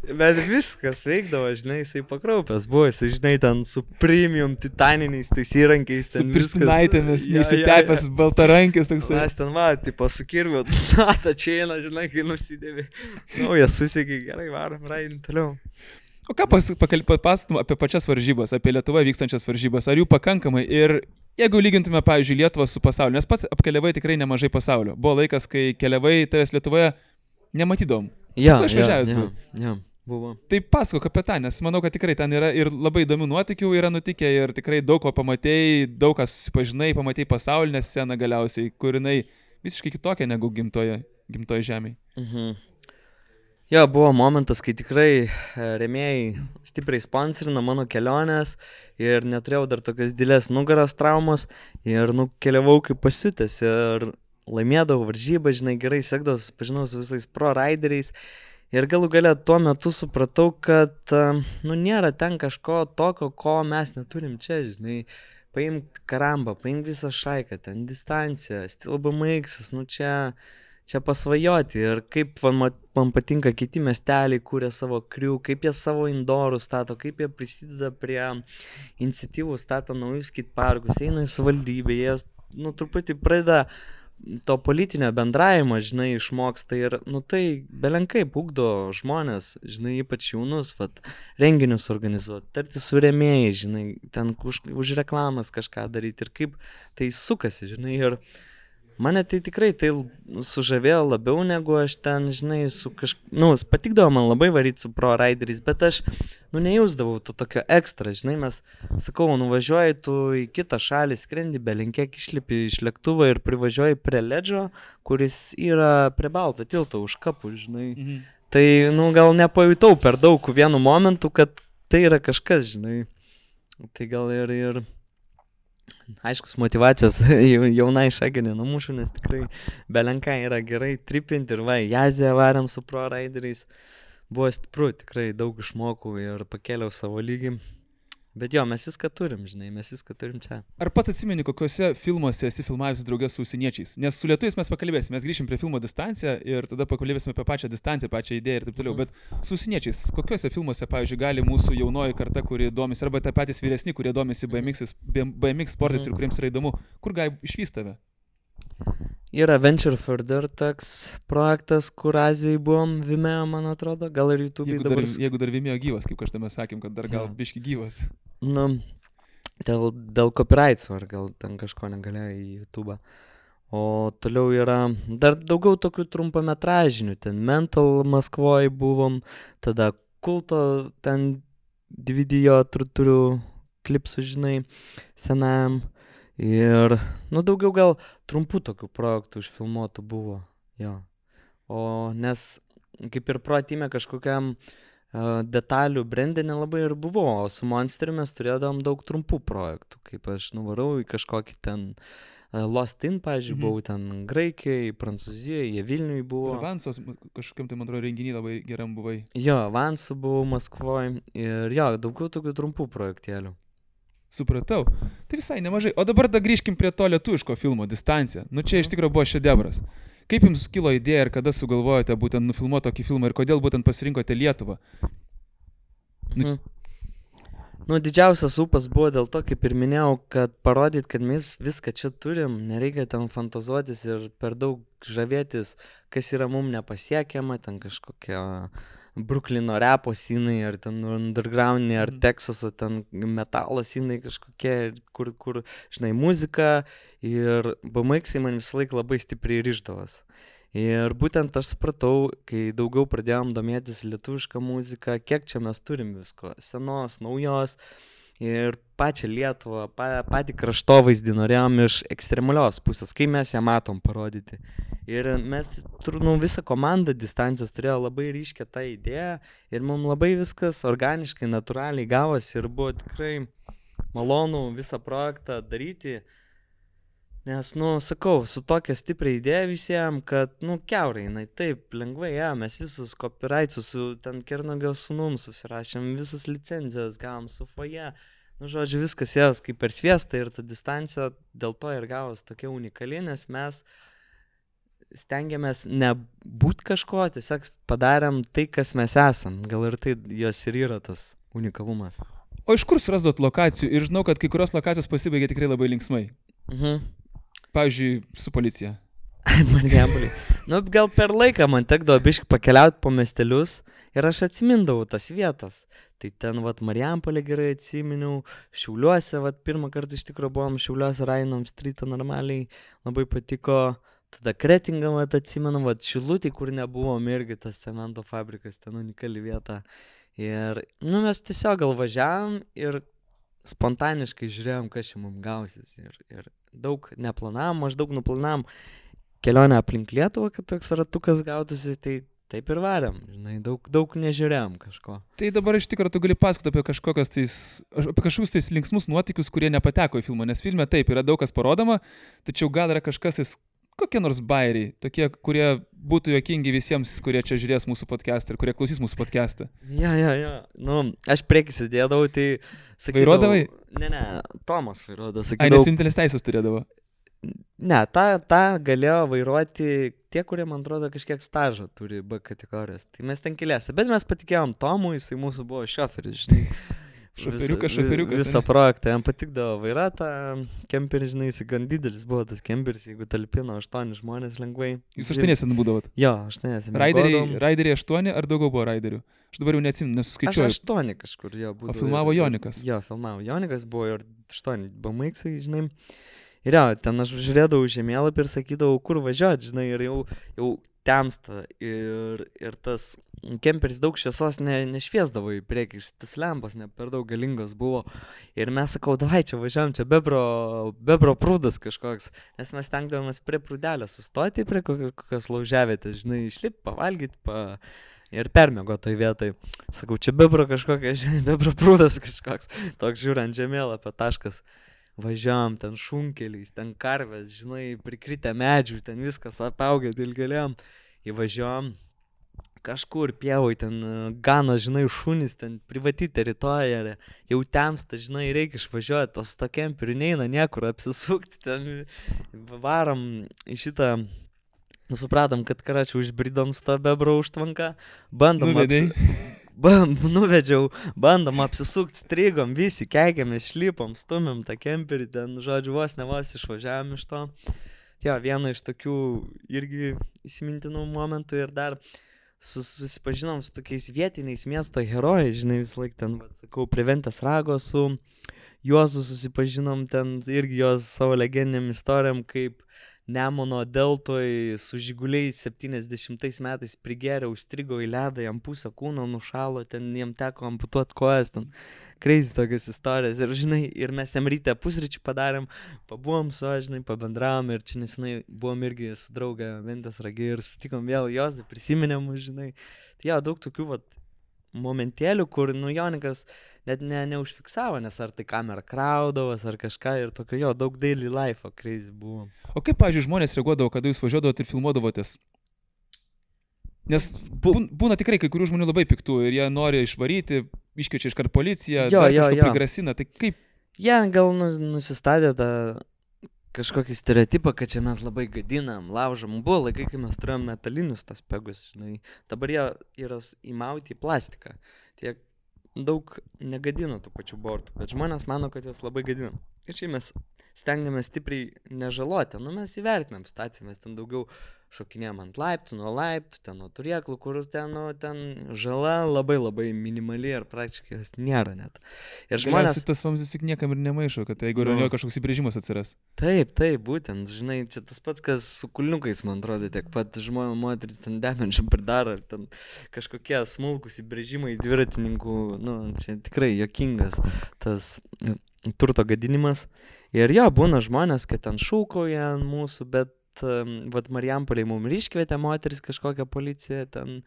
bet viskas veikdavo, žinai, jisai pakraupęs buvo, jisai, žinai, ten su premium titaniniais tais įrankiais, ten su pirštinaitėmis, neišsitepęs baltarankis toksai. Mes ten, va, tipo, su kirviu, ta čia eina, žinai, kai nusidėvi, jie susiekė, gerai, varom, raidin toliau. O ką papasakom apie pačias varžybas, apie Lietuvoje vykstančias varžybas, ar jų pakankamai ir jeigu lygintume, pavyzdžiui, Lietuvą su pasauliu, nes pats apkeliavai tikrai nemažai pasaulio. Buvo laikas, kai keliavai tavęs Lietuvoje nematydom. Ja, buvo. Tai pasakok apie tą, nes manau, kad tikrai ten yra ir labai įdomių nuotykių yra nutikę ir tikrai daug ko pamatėjai, daug ką susipažinai, pamatėjai pasaulinę sceną galiausiai, kur jinai visiškai kitokia negu gimtoje žemėje. Jo, buvo momentas, kai tikrai rėmėjai stipriai sponsorino mano kelionės ir neturėjau dar tokios didelės nugaros traumos ir keliavau kaip pasiutęs ir laimėdavau varžybą, žinai, gerai sekdavau, susipažinau su visais pro rideriais ir galų gale tuo metu supratau, kad nėra ten kažko tokio, ko mes neturim čia, žinai. Paimk karambą, paimk visą šaiką, ten distanciją, stilbamaiksas, čia pasvajoti ir kaip man patinka kiti miesteliai, kūrė savo krių, kaip jie savo indorus stato, kaip jie prisideda prie iniciatyvų, stato naujus skateparkus, eina į savivaldybę, jie truputį pradeda to politinio bendravimo, žinai, išmoksta ir, tai belenkai ugdo žmonės, žinai, ypač jaunus, renginius organizuoti, tarti su rėmėjai, žinai, ten už reklamas kažką daryti ir kaip tai sukasi, žinai, ir mane tai tikrai sužavėjo labiau negu aš ten, žinai, patikdavo man labai varyti su pro rideriais, bet aš, nejausdavau to tokio ekstra, žinai, mes, sakau, nuvažiuoji tu į kitą šalį, skrendi, belenkiek išlipi iš lėktuvo ir privažiuoji prie ledžio, kuris yra prie balto tilto už kapų, žinai. Tai, gal nepajutau per daug vienu momentu, kad tai yra kažkas, žinai. Tai gal ir aiškus motyvacijos jaunai šagai nenumušu, nes tikrai belenkai yra gerai tripinti ir į Aziją varėm su pro rideriais. Buvo stipru, tikrai daug išmokau ir pakėliau savo lygį. Bet jo, mes viską turim, žinai, mes viską turim čia. Ar pats atsimeni, kokiuose filmuose esi filmavęs draugės su užsieniečiais? Nes su lietuviais mes pakalbėsime, mes grįšim prie filmo Distancija ir tada pakalbėsime apie pačią distanciją, pačią idėją ir taip toliau. Bet su užsieniečiais, kokiuose filmuose, pavyzdžiui, gali mūsų jaunoji karta, kuri domisi, arba tai patys vyresni, kurie domisi BMX sportais ir kuriems yra įdomu, kur gali išvysti tave? Yra Venture Further toks projektas, kur Azijai buvom, Vimeo, man atrodo, gal ir YouTube'ai dabar. Jeigu dar Vimeo gyvas, kaip kažtame sakėm, kad dar gal biški gyvas. Dėl copyrights'o, ar gal ten kažko negalėjo į YouTube'ą. O toliau yra dar daugiau tokių trumpametražinių, ten Mental Maskvoje buvom, tada Kulto ten video turiu klipsų, žinai, senam. Ir, daugiau gal trumpų tokių projektų užfilmuotų buvo, jo. O nes kaip ir proatime kažkokiam detalių brandė nelabai ir buvo, o su Monsteri mes turėdavom daug trumpų projektų, kaip aš nuvarau į kažkokį ten Lost In, pavyzdžiui, buvau ten Graikijoje, Prancūzijoje, Vilniuje buvo. Ir Vansos kažkokiam tai, man atrodo, renginį labai geram buvai. Jo, Vansu buvau Maskvoje ir jo, daugiau tokių trumpų projektėlių. Supratau. Tai visai nemažai. O dabar da grįžkim prie to lietuviško filmo Distancija. Čia iš tikrųjų buvo šedevras. Kaip jums kilo idėja ir kada sugalvojote būtent nufilmuoti tokį filmą ir kodėl būtent pasirinkote Lietuvą? Didžiausias ūpas buvo dėl to, kaip ir minėjau, kad parodyt, kad mes viską čia turim, nereikia ten fantazuotis ir per daug žavėtis, kas yra mum nepasiekiama, ten kažkokia Bruklino repo scenai, ar ten undergroundiniai, ar Teksaso ten metalo scenai kažkokie, kur, žinai, muzika ir BMX man visą laiką labai stipriai ryždavos. Ir būtent aš supratau, kai daugiau pradėjom domėtis lietuvišką muziką, kiek čia mes turim visko, senos, naujos ir pačią Lietuvą, patį kraštovaizdį norėjom iš ekstremalios pusės, kai mes ją matom parodyti. Ir mes, visą komandą Distancijos turėjo labai ryškę tą idėją ir mums labai viskas organiškai, natūraliai gavosi ir buvo tikrai malonu visą projektą daryti. Nes, sakau, su tokia stipria idėja visiems, kad, kiaurai, taip, lengvai, mes visus copyrightsus su ten Kernagio sūnum susirašėm, visas licenzijas gavom su foje. Žodžiu, viskas jas kaip per sviestą ir ta Distancija dėl to ir gavos tokia unikali, nes mes stengiamės nebūt kažko, tiesiog padarėm tai, kas mes esam. Gal ir tai jos ir yra tas unikalumas. O iš kur surasdot lokacijų? Ir žinau, kad kai kurios lokacijos pasibaigė tikrai labai linksmai. Pavyzdžiui, su policija. Marijampolė. Gal per laiką man tekdavo biškai pakeliauti po miestelius ir aš atsimindavau tas vietas. Tai ten, Marijampolė gerai atsiminiau, Šiauliuose, pirmą kartą iš tikrųjų buvom Šiauliuose, rainom streetą normaliai, labai patiko. Tada Kretingą atsimenu, Šilutį, kur nebuvom irgi tas cemento fabrikas, ten unikali vieta. Ir, mes tiesiog gal važiavom ir spontaniškai žiūrėjom, kas čia mums gausis. Ir daug neplanavom, maždaug nuplanavom kelionę aplink Lietuvą, kad toks ratukas gautųsi, tai taip ir varėm, žinai, daug nežiūrėjom kažko. Tai dabar iš tikrųjų tu gali pasakoti apie kažkokius tais linksmus nuotykius, kurie nepateko į filmą, nes filme taip yra daug kas parodoma, tačiau gal yra kažkas, kokie nors bairiai, tokie, kurie būtų juokingi visiems, kurie čia žiūrės mūsų podcastą ir kurie klausys mūsų podcastą. Ja. Aš priekį sėdėdavau, tai sakydavau... Vairuodavai? Ne, Tomas vairuodavo, sakydavau... Ai, nes vienintelis teisės turėdavo? Ne, tą galėjo vairuoti tie, kurie, man atrodo, kažkiek stažą turi B kategorijos. Tai mes ten keliasi, bet mes patikėjom Tomui, jisai mūsų buvo šoferis, žinai. Šoferiukas. Visą projektą, jam patikdavo vairuotą kemperį, žinai, jis gan didelis buvo tas kemperis, jeigu talpino 8 žmonės lengvai. Jūs 8 būdavot? Jo, 8. Raideriai 8 ar daugiau buvo raiderių? Aš dabar jau neatsimenu, nesuskaičiuoju. Aš 8 kažkur, jo, būdavo. O filmavo Jonikas? Jo, filmavo Jonikas, buvo ir 8 BMX, žinai. Ir jo, ten aš žiūrėdavau žemėlapį ir sakydavau, kur važiuoti, žinai, ir jau temsta ir tas kemperis daug šviesos nešviesdavo į priekį, tas lempas ne per daug galingos buvo. Ir mes sakau, davai čia važiuojam, čia bebro prūdas kažkoks, nes mes stengdavomės prie prūdelio sustoti, prie kokios lauževietės, žinai, išlipti, pavalgyti, ir permėgo toj vietoj. Sakau, čia bebro kažkokia, žinai, bebro prūdas kažkoks, toks žiūrint žemėlapio taškas. Važiavam ten šunkeliais, ten karvės, žinai, prikritę medžių, ten viskas apaugę dilgėlėm. Įvažiavam kažkur pievoj, ten gana, žinai, šunys, ten privati teritorija, jau temsta, žinai, reikia išvažiuoti, tos to kemperių neina niekur apsisukti, ten varom į šitą, supratom, kad karačiau išbridom su tą bebro užtvanką, nuvedžiau, bandom apsisukti, strigom, visi keikėmės, šlipom, stumėm tą kemperį, ten, žodžiu, vos išvažiavam iš to. Jo, viena iš tokių irgi įsimintinų momentų ir dar susipažinom su tokiais vietiniais miesto herojais, žinai, vis laik ten, sakau, prie Ventės rago su Juozu susipažinom ten irgi jos savo legendiniam istorijom, kaip Nemuno deltoj su žiguliais 70 metais prigėrė, užstrigo į ledą, jam pusę kūno nušalo, ten jam teko amputuoti kojas, ten crazy tokios istorijas. Ir, žinai, ir mes jam ryte pusryčių padarėm, pabuvom su, žinai, pabendravom ir čia nesenai buvom irgi su draugė Ventės Ragi ir sutikom vėl jos, prisiminėm, žinai. Tai jo, daug tokių vat momentėlių, kur, nu, Jonikas net neužfiksavo, nes ar tai kamera kraudavas, ar kažką ir tokio, jo, daug daily life'o crazy buvo. O kaip, pavyzdžiui, žmonės reaguodavo, kada jūs važiuodavot ir filmuodavotės? Nes būna tikrai kai kurių žmonių labai piktų ir jie nori išvaryti, iškviečia iškart policiją, kažko prigrasina, tai kaip? Jie gal nusistatė tą kažkokį stereotipą, kad čia mes labai gadinam, laužam. Buvo laikai, kai mes turėjom metalinius tas pegus, žinai. Dabar jie yra įmauti į plastiką. Tie daug negadino tų pačių bortų, bet žmonės mano, kad jos labai gadinam. Ir čia mes stengiamės stipriai nežaloti. Nu, mes įvertinam situaciją, mes ten daugiau šokinėjom ant laiptų, nuo laiptų, ten nuo turėklų, kur ten, nu, ten žala labai labai minimali ir praktiškai jos nėra net. Ir žmonės... Tas vamzdis juk niekam ir nemaišo, kad jeigu yra kažkoks įbrėžimas atsiras. Taip, būtent, žinai, čia tas pats, kas su kulniukais, man atrodo, tiek pat žmonės, moteris ten demenčią pridaro, ir ten kažkokie smulkus įbrėžimai dviratininkų, nu, čia tikrai juokingas tas turto gadinimas. Ir jo, būna žmonės, kad ten šūkoja ant mūsų, bet vat Marijampolėj mums iškvietė moteris kažkokią policiją, ten,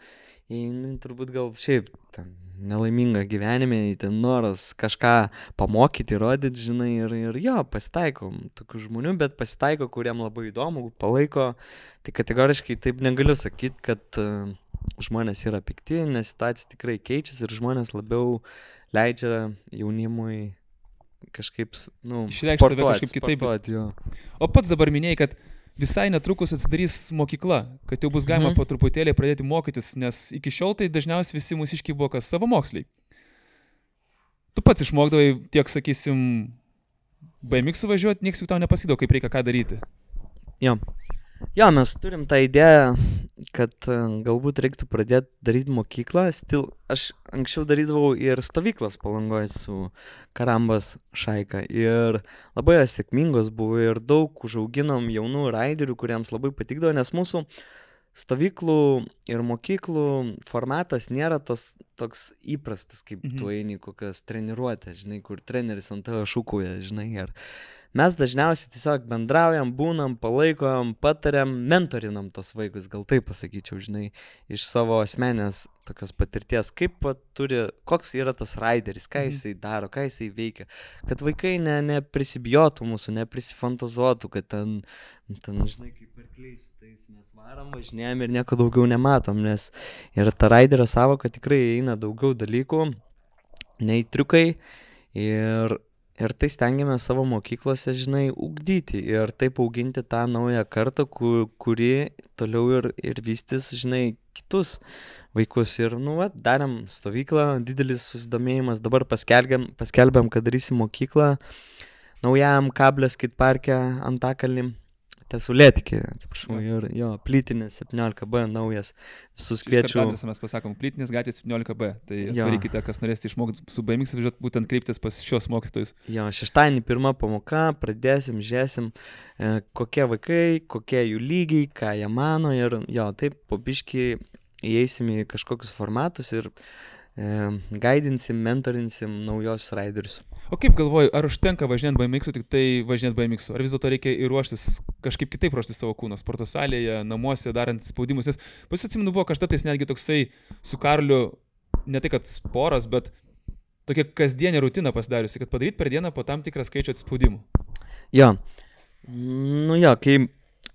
turbūt gal šiaip ten nelaiminga gyvenime, ten noras kažką pamokyti, rodyti, žinai, ir jo, pasitaiko tokių žmonių, bet pasitaiko, kuriem labai įdomu, palaiko, tai kategoriškai taip negaliu sakyti, kad žmonės yra pikti, nes situacija tikrai keičiasi ir žmonės labiau leidžia jaunimui kažkaip, nu, sportuoti, jo. O pats dabar minėjai, kad visai netrukus atsidarys mokykla, kad jau bus galima po truputėlį pradėti mokytis, nes iki šiol tai dažniausiai visi mūsiškiai buvo kas savamoksliai. Tu pats išmokdavai tiek, sakysim, BMX važiuoti, nieks jau tau nepasakydavo, kaip reikia ką daryti. Jo, mes turim tą idėją, kad galbūt reiktų pradėti daryti mokyklą. Aš anksčiau darydavau ir stovyklas Palangoje su Karambas šaika ir labai sėkmingos buvo ir daug užauginom jaunų raiderių, kuriems labai patikdavo, nes mūsų stovyklų ir mokyklų formatas nėra toks įprastas, kaip tu eini kokias treniruotės, žinai, kur treneris ant tavo šūkuoja, žinai, ir mes dažniausiai tiesiog bendraujam, būnam, palaikom, patariam, mentorinam tos vaikus, gal taip pasakyčiau, žinai, iš savo asmenės tokios patirties, kaip koks yra tas raideris, ką jisai daro, ką jisai veikia, kad vaikai neprisibijotų mūsų, neprisifantazuotų, kad ten, žinai, kaip arkliai su tais mes varom, važinėjom ir nieko daugiau nematom, nes ir ta raiderio savoka tikrai eina daugiau dalykų, nei triukai ir tai stengiamės savo mokyklose, žinai, ugdyti ir taip auginti tą naują kartą, kuri toliau ir vystys, žinai, kitus vaikus. Ir, nu, darėm stovyklą, didelis susidomėjimas, dabar paskelbėm, kad darysim mokyklą naujam Kablės skateparke Antakalny. Tesulėtikė, atsiprašau, ir jo, plytinis 17B naujas, visus kviečiu. Mes pasakom, plytinis gatvė 17B, tai atvarykite, kas norėsite išmokti su BMX, būtent kreiptis pas šios mokytojus. Jo, šeštadienį pirma pamoka, pradėsim, žiūrėsim, kokie vaikai, kokie jų lygiai, ką jie mano ir jo, taip po biškį įeisim į kažkokius formatus ir gaidinsim, mentorinsim naujos raiderius. O kaip galvoju, ar užtenka važinėti BMX-u, tik tai važinėti BMX-u? Ar vis dėlto reikia ir ruoštis, kažkaip kitaip ruoštis savo kūną, sporto salėje, namuose, darant spaudimus? Nes atsimenu, buvo kažkatais netgi toksai su Karliu, ne tai kad sporas, bet tokia kasdienė rutina pasidariusi, kad padaryti per dieną po tam tikrą skaičių atspaudimų. Jo, nu jo, kai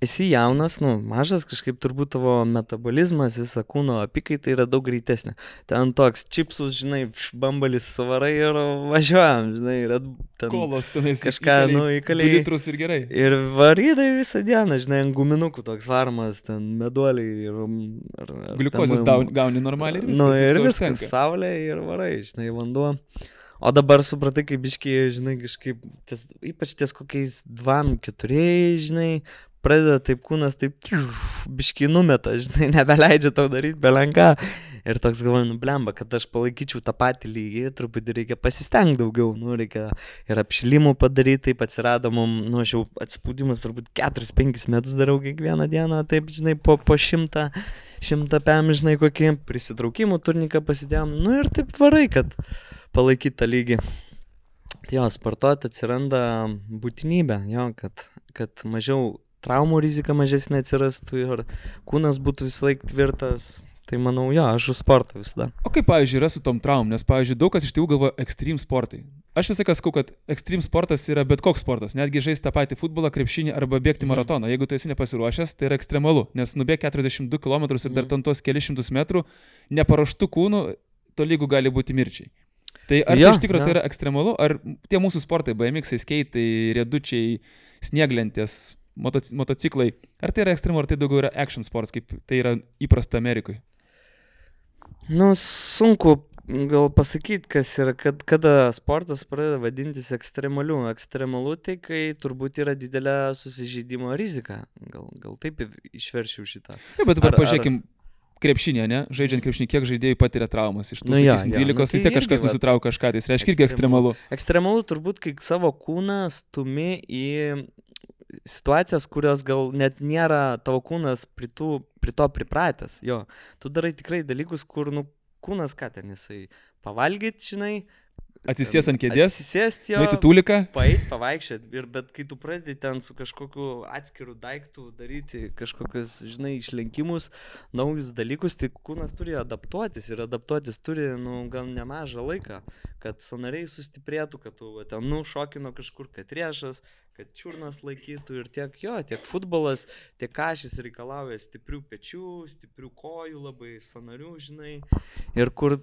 esi jaunas, nu, mažas, kažkaip turbūt tavo metabolizmas, visa kūno apykaita yra daug greitesnė. Ten toks čipsus, žinai, bambalis savarai ir važiuojam, žinai, ir ten kolos tenais kažką, įkaliai. 2 litrus ir gerai. Ir varydai visą dieną, žinai, ant guminukų toks varmas, ten meduoliai ir gliukozės gauni normaliai ir viskas. Nu, ir viskas, saulė ir varai, žinai, vanduo. O dabar supratai, kaip biškiai, žinai, kažkaip, ypač ties kokiais 2-4, žinai, pradeda taip kūnas, taip biškai numeta, žinai, nebeleidžia tau daryti belenką. Ir toks galvoju, blemba, kad aš palaikyčiau tą patį lygį, truputį reikia pasistengti daugiau, reikia ir apšilimų padaryti, taip atsirado mums, aš jau atsipūdimas turbūt 4-5 metus darau kiekvieną dieną, taip, žinai, po 100 pėm, žinai, kokį prisitraukimų turniką pasidėjom, ir taip varai, kad palaikyti tą lygį. Tai jo, sportuoti atsiranda būtinybė, jo, kad mažiau traumų rizika mažesnė atsirastų ir kūnas būtų visą laiką tvirtas. Tai manau, jo, aš už sportą visada. O kaip, pavyzdžiui, yra su tom traumom? Nes, pavyzdžiui, daug kas iš tėvų galvoja extreme sportai. Aš visą laiką sakau, kad extreme sportas yra bet koks sportas. Netgi žaisti tą patį futbolą, krepšinį arba bėgti maratoną. Jeigu tu esi nepasiruošęs, tai yra ekstremalu. Nes nubėg 42 km ir dar ten tos kelišimtus metrų, neparuoštų kūnų, tolygų gali būti mirčiai. Tai ar tai iš tikrųjų tai yra ekstremalu? Ar tie mūsų sportai, BMX-ai, skeitai, riedučiai, snieglentės, motociklai, ar tai yra ekstremalu, ar tai daugiau yra action sports, kaip tai yra įprasta Amerikoje? Sunku gal pasakyti, kas yra, kada sportas pradeda vadintis ekstremaliu. Ekstremalu tai, kai turbūt yra didelė susižeidimo rizika. Gal taip išverčiau šitą. Ja, bet dabar pažiūrėkim krepšinė, ne? Žaidžiant krepšinį, kiek žaidėjų patiria traumas. Iš tų 12 vis tiek kažkas nusitraukia kažką, tai reiškia irgi ekstremalu. Ekstremalu turbūt, kai savo kūną stumi į situacijas, kurios gal net nėra tavo kūnas prie to pripratęs. Jo, tu darai tikrai dalykus, kur, kūnas ką ten jisai pavalgyt, žinai. Atsisės ant kėdės. Atsisėst jo. Nueiti tūliką. Pavaikščiat. Bet kai tu pradedi ten su kažkokiu atskiru daiktu daryti kažkokius, žinai, išlenkimus, naujus dalykus, tai kūnas turi adaptuotis ir adaptuotis turi, gal nemažą laiką, kad sąnariai sustiprėtų, kad tu ten šokino kažkur, kad riešas, kad čiurnas laikytų ir tiek futbolas, tiek kažis reikalauja stiprių pečių, stiprių kojų, labai sąnarių, žinai. Ir kur,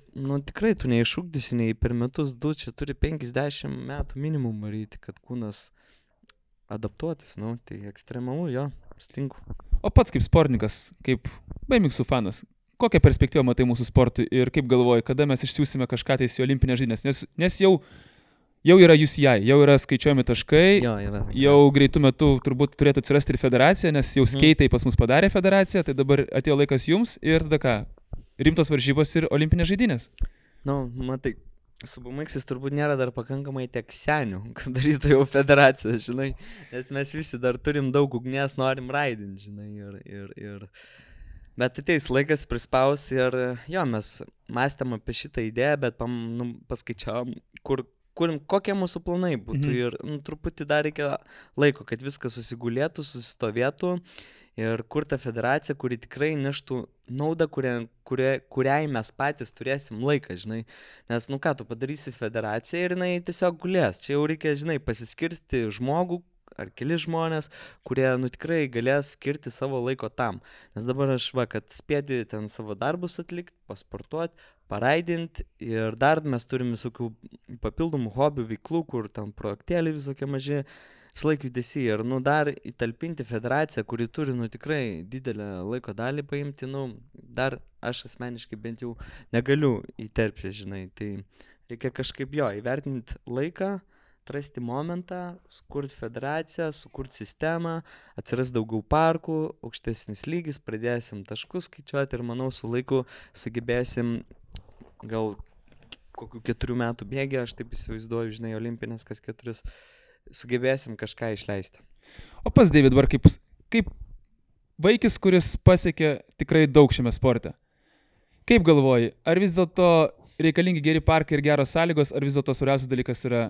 tikrai tu neišugdysi nei per metus, čia turi 50 metų minimum varyti, kad kūnas adaptuotis, tai ekstremalu, jo, sutinku. O pats kaip sportininkas, kaip BMX fanas, kokią perspektyvą matai mūsų sportui ir kaip galvoji, kada mes išsiųsime kažką tais į olimpinės žaidynes, nes jau yra UCI, jau yra skaičiuojami taškai, jau greitų metų turbūt turėtų atsirasti ir federacija, nes jau skeitai pas mus padarė federaciją, tai dabar atėjo laikas jums ir tada ką, rimtos varžybos ir olimpinės žaidynės. Matai, su BMX turbūt nėra dar pakankamai tiek senių, kad darytų jau federaciją, žinai, nes mes visi dar turim daug ugnies, norim raidinti, žinai, bet ateis laikas prispaus ir jo, mes mąstėm apie šitą idėją, bet paskaičiavom, kokie mūsų planai būtų ir truputį dar reikia laiko, kad viskas susigulėtų, susistovėtų ir kur ta federacija, kuri tikrai neštų naudą, kuriai mes patys turėsim laiką, žinai. Nes, tu padarysi federaciją ir jinai tiesiog gulės. Čia jau reikia, žinai, pasiskirti žmogų ar keli žmonės, kurie, tikrai galės skirti savo laiko tam. Nes dabar aš, kad spėti ten savo darbus atlikti, pasportuoti, paraidinti ir dar mes turim visokių papildomų hobių, veiklų, kur ten projektėliai visokie maži, vis laik judesi ir, dar įtalpinti federaciją, kuri turi, tikrai didelę laiko dalį paimti, dar aš asmeniškai bent jau negaliu įterpti, žinai, tai reikia kažkaip įvertinti laiką, atrasti momentą, sukurti federaciją, sukurti sistemą, atsiras daugiau parkų, aukštesnis lygis, pradėsim taškus skaičiuoti ir manau su laiku sugebėsim gal kokių 4 metų bėgį, aš taip įsivaizduoju, žinai, olimpinės kas 4, sugebėsim kažką išleisti. O pas David, dabar kaip vaikis, kuris pasiekė tikrai daug šiame sporte, kaip galvoji, ar vis dėlto reikalingi geri parkai ir geros sąlygos, ar vis dėlto svarbiausias dalykas yra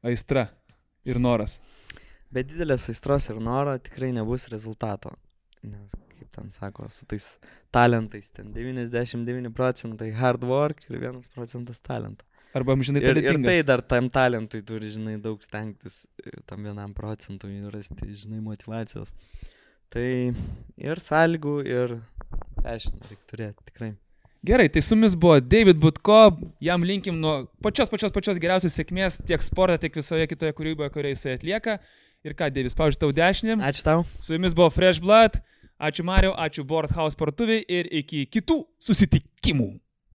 aistra ir noras? Be didelės aistros ir noro tikrai nebus rezultato. Nes, kaip ten sako, su tais talentais, ten 99% hard work ir 1% talento. Arba amžinai talentingas. Ir tai dar tam talentui turi, žinai, daug stengtis, tam 1% rasti, žinai, motivacijos. Tai ir sąlygų, ir passion reikia turėti, tikrai. Gerai, tai su mumis buvo David Butko, jam linkim nuo pačios geriausios sėkmės tiek sporte, tiek visoje kitoje kūryboje, kurią jisai atlieka. Ir ką, David, spaudžiu tau dešinį. Ačiū tau. Su jumis buvo Fresh Blood, ačiū Mariau, ačiū Board House partuviai ir iki kitų susitikimų.